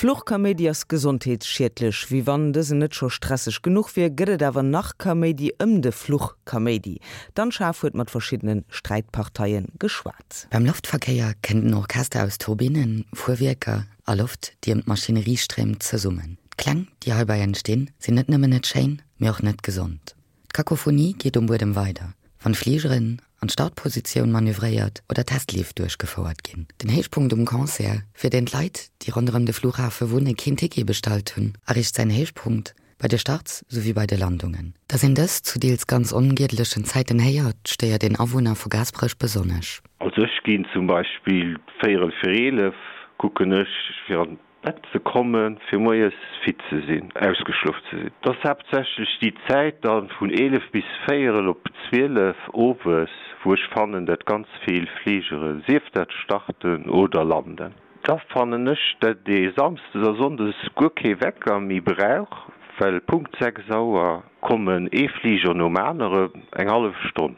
Fluchkaméidi ass gesondheetsschiedlech. Wéi wann dësen net scho stresseg genuch wier, gëtt et awer nach Kaméidi ëm de Fluchkaméidi. D'Anne Schaaf huet mat verschiddene Sträitparteie geschwat. Beim Loftverkéier kënnt en Orchester aus Turbinnen, Fuerwierker a Loft, déi ëm d'Maschinerie stréimt, zesummen. D'Kläng, déi heibäi entstinn, sinn net nëmmen net schéin, mee och net gesond. D'Kakophonie geet um Buedem weider, wann Fligeren an d'Startpositioun manövréiert oder Testleef duerchgefouert ginn. Den Héichpunkt um Concert, fir deen d'Leit, déi ronderëm de Flughafe wunne keen Ticket bestallt hunn, erreecht säin Héichpunkt bei de Starts souwéi bei de Landungen. Datt een dës zu deels ganz ongiedlechen Zäiten héiert, stéiert een Awunner vu Gaasperech besonnesch. Also ech ginn zum Beispill véierel fir 11 kucken ech fir an Bett ze kommen, fir moies fit ze sinn, ausgeschlof ze sinn. Et ass haaptsächlech déi Zäit dann vun 11 bis véierel op 12 owes, wou ech fannen, dat ganz vill Fligere, sief dat starten oder landen. Da fannen ech, dat ee samsdes a sonndes guer kee Wecker méi brauch, well Punkt 6 Auer kommen ee Fliger nom anere, eng hallef Stonn.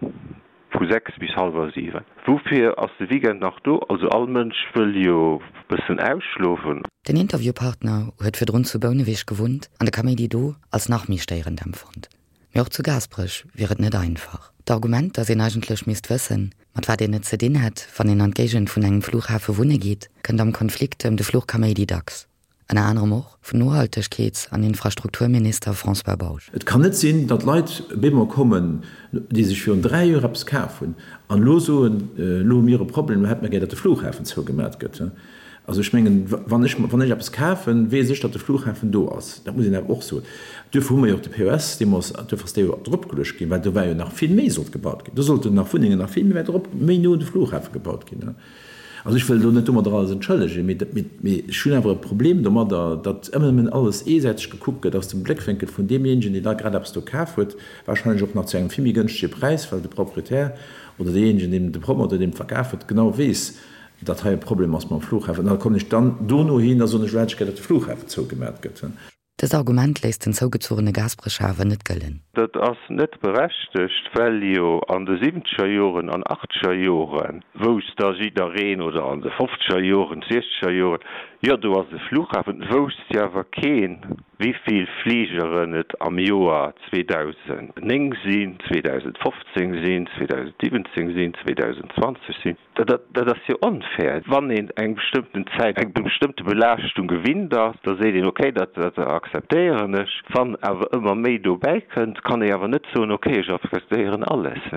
Vu 6 bis hallwer 7. Woufir ass de Weekend nach do? Also all Mënsch wëll jo bëssen ausschlofen. Den Interviewpartner huet virdrun zu Bouneweg gewunnt an de Kaméidi do als nach méi stéierend empfonnt. Mee och zu Gaasperech wier et net einfach. D'Argument, datt een eigentlech misst wëssen, mat wat een et ze dinn hätt, wann een an d'Géigend vun engem Flughafe wunne geet, kënnt am Konflikt ëm de Fluchkaméidi dacks. Ënner anerem och vun Nohaltegkeets an Infrastrukturminister François Bausch. Et kann net sinn, datt Leit bemol kommen, déi sech virun 3 Joer eppes kaf hunn an elo soen, elo hu mir e Problem, elo hätte mer gär, datt de Flughafen zougemat gëtt. Also ech mengen, wann ech, wann ech eppes kafen, weess ech, datt de Flughafen do ass. Dat muss een awer och soen. Duerfir hu mer jo och de POS deemools, duerfir ass dee jo dropgeluecht ginn, well do war jo nach vill méi sollt gebaut ginn. Do sollten nach Wunnengen nach vill méi wäit erop, méi no un de Flughafe gebaut ginn. Also ech wëll elo net domadder alles entschëllegen, mee ech hunn awer e Problem domadder, datt ëmmer nëmmen alles eesäiteg gekuckt gëtt aus dem Bléckwénkel vun deemjéinegen, deen da grad eppes do kaf huet, wahrscheinlech och nach zu engem vill méi gënschtege Präis, well de Proprietär oder deejéinegen, deem de Promoteur, deem et verkaf huet, genau weess, datt hei e Problem ass mam Flughafen. An da kommen ech dann dono hin a soen, ech hätt gär, datt de Flughafen zougemat gëtt. Dëst Argument léisst den zougezogene Gasbrécher awer net gëllen. Dat ass net berechtegt, well jo an de siwwenzeger Joren an achtzeger Joren wousst da jiddereen, oder an de fofzeger Joren, siechzeger Joren, jo do ass e Flughafen, et wousst jo awer keen, wivill Fligeren et am Joer 2009 sinn, 2015 sinn, 2017 sinn, 2020 sinn. Dat ass jo onfair. Wann een eng bestëmmten Zäit eng bestëmmte Belaaschtung gewinnt ass, da seet een, okay, dat akzeptéieren ech. Wann awer ëmmer méi dobäi kënnt, kann ee awer net soen, okay, ech akzeptéieren alles.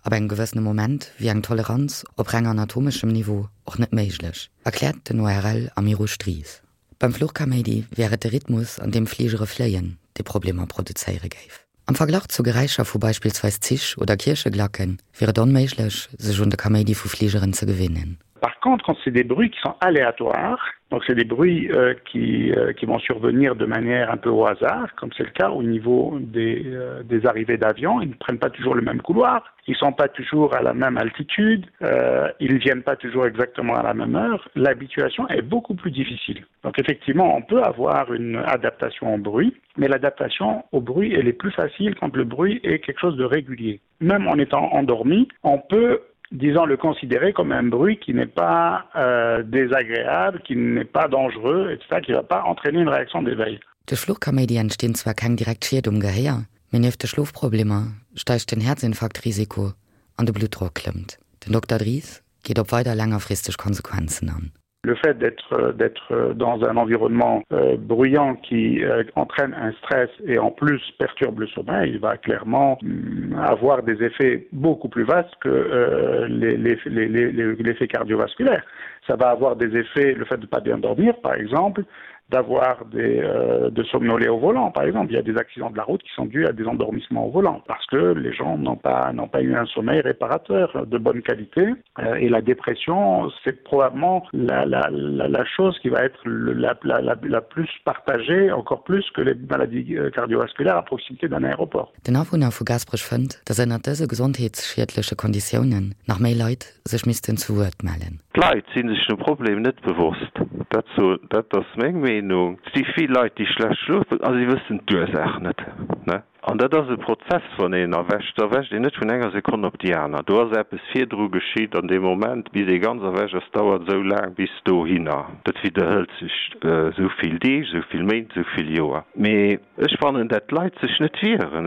Ab engem gewëssene Moment wier eng Toleranz op reng anatomeschem Niveau och net méiglech, erkläert den ORL Amirouche Dries. Beim Fluchkaméidi wär et de Rhythmus, an deem Fligere fléien, dee Problemer produzéiere géif. Am Verglach zu Geräischer vu beispillsweis Zich oder Kiercheglacke wier et onméiglech, sech un de Kaméidi vu Fligeren ze gewinnen. Par contre, quand c'est des bruits qui sont aléatoires, donc c'est des bruits euh, qui, euh, qui vont survenir de manière un peu au hasard, comme c'est le cas au niveau des, euh, des arrivées d'avions, ils ne prennent pas toujours le même couloir, ils ne sont pas toujours à la même altitude, euh, ils ne viennent pas toujours exactement à la même heure, l'habituation est beaucoup plus difficile. Donc effectivement, on peut avoir une adaptation au bruit, mais l'adaptation au bruit elle est plus facile quand le bruit est quelque chose de régulier. Même en étant endormi, on peut disons le considérer comme un bruit qui n'est pas euh, désagréable, qui n'est pas dangereux, etc., qui ne va pas entraîner une réaction d'éveil. Duerch Fluchkaméidi entstinn zwar keng direkt Schied um Gehéier, mee nieft de Schlofproblemer steigt den Häerzinfarktrisiko an de Bluttdrock klëmmt. Den Dokter Dries geet op weider längerfristeg Konsequenzen an. Le fait d'être d'être dans un environnement euh, bruyant qui euh, entraîne un stress et en plus perturbe le sommeil, il va clairement mm, avoir des effets beaucoup plus vastes que euh, l'effet cardiovasculaire. Ça va avoir des effets, le fait de ne pas bien dormir par exemple, d'avoir des euh, de somnoler au volant par exemple il y a des accidents de la route qui sont dus à des endormissements au volant parce que les gens n'ont pas n'ont pas eu un sommeil réparateur de bonne qualité euh, et la dépression c'est probablement la, la, la, la chose qui va être le, la, la, la, la plus partagée encore plus que les maladies euh, cardiovasculaires à proximité d'un aéroport. Den Awunner vu Gaasperech fënnt, datt ënnert dëse gesondheetsschiedleche Konditiounen nach méi Leit sech missten zu Wuert mellen. D'Leit si sech dem Problem net bewosst. Dat so, dat ass meng Meenung. Et si vill Leit, déi schlecht schlofen a si wëssen d'Ursaach net. An dat ass e Prozess, wann een erwächt, da erwächt een net vun enger Sekonn op déi aner. Do ass eppes virdru geschitt an deem Moment, bis ee ganz erwächt ass, dauert esou laang bis dohinner. Dat widderhëlt sech esou vill Deeg, esou vill Méint, esou vill Joer. Mee ech fannen, dat d'Leit sech net wieren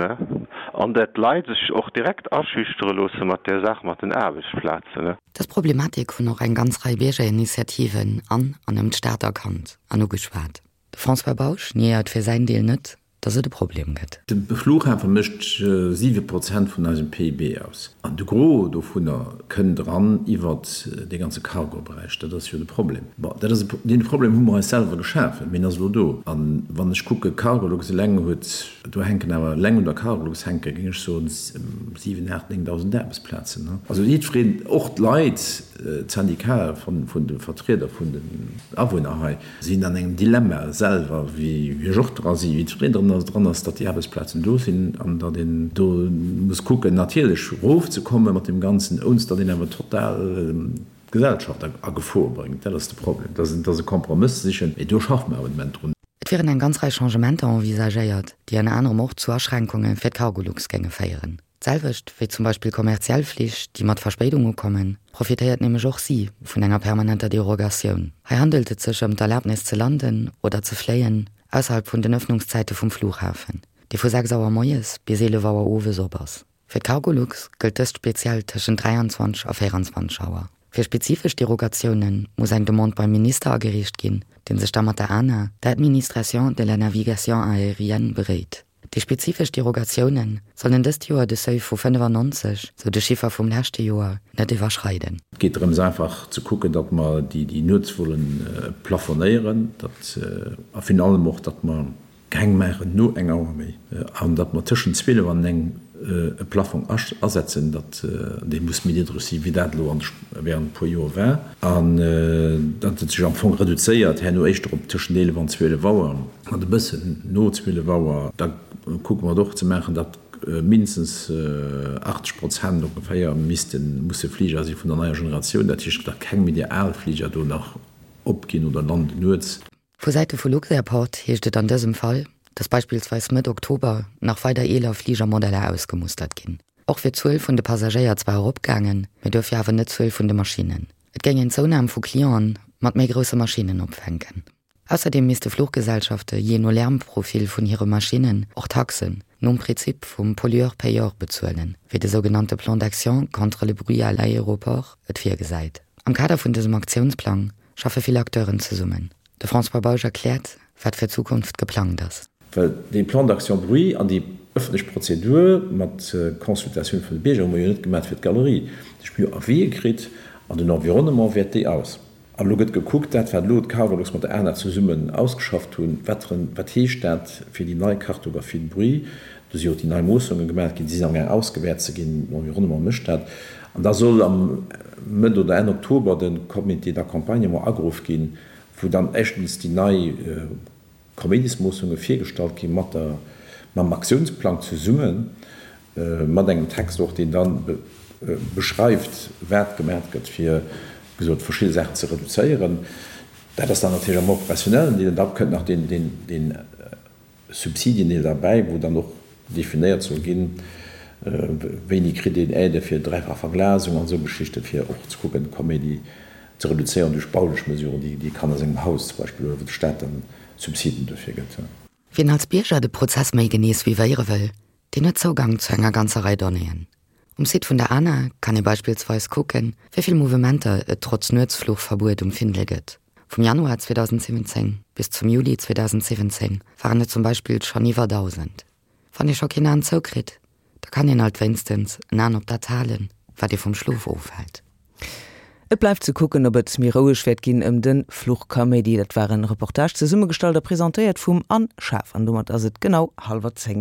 an dat d'Leit sech och direkt aschüchtere loosse mat där Saach mat den Aarbechtsplazen. Dës Problematik hunn och eng ganz Rei Biergerinitiativen an an ëm d'Stad erkannt an ugeschwat. De François Bausch niéiert fir säin Deel net, dass et e Problem gëtt. De Flughafe mécht 7 Prozent vun eisem PIB aus. An de Gros dovunner kënnt eran iwwert dee ganze Cargo-Beräich. Dat ass jo de Problem. Bon, dat ass e, dee Problem hu mer eis selwer geschafen, mee en ass elo do. A wann ech kucke, Cargolux eleng huet, do hänken awer eleng un der Cargolux hänke, géing ech soen, 7, 8, 9.000 Aarbechtsplazen. Also jiddwereen, och d'Leit, d'Syndicate vun de Vertrieder vun den Awunner hei, sinn an engem Dilemma selwer, wéi ech och dra sinn, wéi jiddwereen dran ass, dran ass, datt déi Aarbechtsplazen do sinn an datt een do muss kucken natierlech erofzekomme mat deem Ganzen, ounst datt een awer total d'Gesellschaft a Gefor bréngt. Dat ass de Problem. Dat ass e Kompromëss ze sichen, mee do schaffe mer awer de Moment drun. Et wieren eng ganz Rei Changementer envisagéiert, déi ënner anerem och zu Aschränkunge fir d'Cargolux géinge féieren. D'selwecht wéi zum Beispill kommerziell Flich, déi mat Verspéidung ukommen, profitéiert nämlech och si vun enger permanenter Derogatioun. Hei handelt et sech ëm d'Erlabnis ze landen oder ze fléien ausserhalb vun den Ëffnungszäite vum Flughafen, dee vu 6 Auer moies bis 11 Auer owes op ass. Fir d'Cargolux gëllt dëst speziell tëschent 23 a 24 Auer. Fir spezifesch Derogatioune muss eng Demande beim Minister agereecht ginn, dee sech da mat der ANA, der Administration de la Navigation Aérienne, beréit. Déi spezifesch Derogatioune sollen dëst Joer de Seuil vu 95, sou de Chiffer vum leschte Joer, net iwwerschreiden. Et geet drëms einfach ze kucken, datt mer déi Nuetsvolle plafonéieren, datt a virun allem och, datt mer keng maachen no eng Auer méi an datt mer tëschent 12 an eng e Plafong asetzen, datt dee muss méi niddreg si wéi dat elo während e puer Joer war an datt et sech am Fong reduzéiert herno éischter op tëschent 11 an 12 Auer. Mat e bëssen no 12 Auer, da kucke mer et och ze maachen, datt mindestens 80 Prozent ongeféier missten, musse Fliger si vun der neier Generatioun, dat heescht, datt keng méi déi al Fliger do nach opginn oder landen nuets. Vu Säite vu Luxairport heescht et an dësem Fall, datt beispillsweis Mëtt Oktober nach weider eeler Fligermodeller ausgemustert ginn. Och wier d'Zuel vun de Passagéier zwar eropgaangen, mee duerfir awer net d'Zuel vun de Maschinnen. Et géing een d'Zounam vu Clienten mat méi grousse Maschinnen opfänken. Ausserdeem misste Fluchgesellschafte jee no Lärmprofil vun hire Maschinnen och Taxen nom Prinzip vum Pollueur-payeur bezuelen, wéi de sougenannte Plan d'action contre le bruit à l'aéroport et virgesäit. Am Kader vun dësem Aktiounsplang schaffe vill Acteuren zesummen. De François Bausch erkläert, wat fir d'Zukunft geplangt ass. Well dee Plan d'action bruit an déi ëffentlech Prozedur mat Consultatioun vun de Bierger hu mer jo net gemaach fir d'Galerie. Ech hu jo Avisë kritt an den Environnement wäert déi aus. An elo gëtt gekuckt, dat wat elo d'Cargolux mat der ANA zesummen ausgeschafft hunn, wat wat heescht dat fir déi nei Cartographie de bruit. Do si jo och déi nei Moossunge gemaach ginn, déi sinn amgaang ausgewäert ze ginn, den Environnement mécht dat. An da soll am Mëtt oder Enn Oktober de Comité d'accompagnement ageruff ginn, wou dann éischtens déi nei Kaméidismoossunge virgestallt gi mat der, mam Aktiounsplang zesummen, mat engem Text och, deen da beschreift, wat gemaach gëtt, fir, wéi gesot, verschidde Saachen ze reduzéieren. Dat ass dann natierlech am operationellen Deel. An da kënnt nach deen, deen, deen Subsidiendeel derbäi, wou dann och definéiert soll ginn, wéini kritt een Aide fir dräifach Verglasung an esou Geschichten, fir och ze kucken, Kaméidi ze reduzéieren duerch baulech Mesuren, déi ee kann a sengem Haus zum Beispill huelen, wou de Staat dann Subsiden duerfir gëtt. Wien als Bierger de Prozess méi genee suivéiere wëll, deen huet Zougang zu enger ganzer Rei Donnéeën. Um Site vun der ANA kann ee beispillsweis kucken, wéi vill Mouvementer et trotz Nuetsfluchverbuet um Findel gëtt. Vum Januar 2017 bis zum Juli 2017 waren et zum Beispill schonn iwwer 1.000. Wann ee scho keen An zoukritt, da kann een alt wéinstens en An op dat halen, wat ee vum Schlof ofhält. Et bleift ze kucken, ob et méi roueg wäert ginn ëm de Fluchkaméidi. Dat war en Reportage, zesummegestallt a presentéiert vum Anne Schaaf. An domat ass et genau hallwer 10.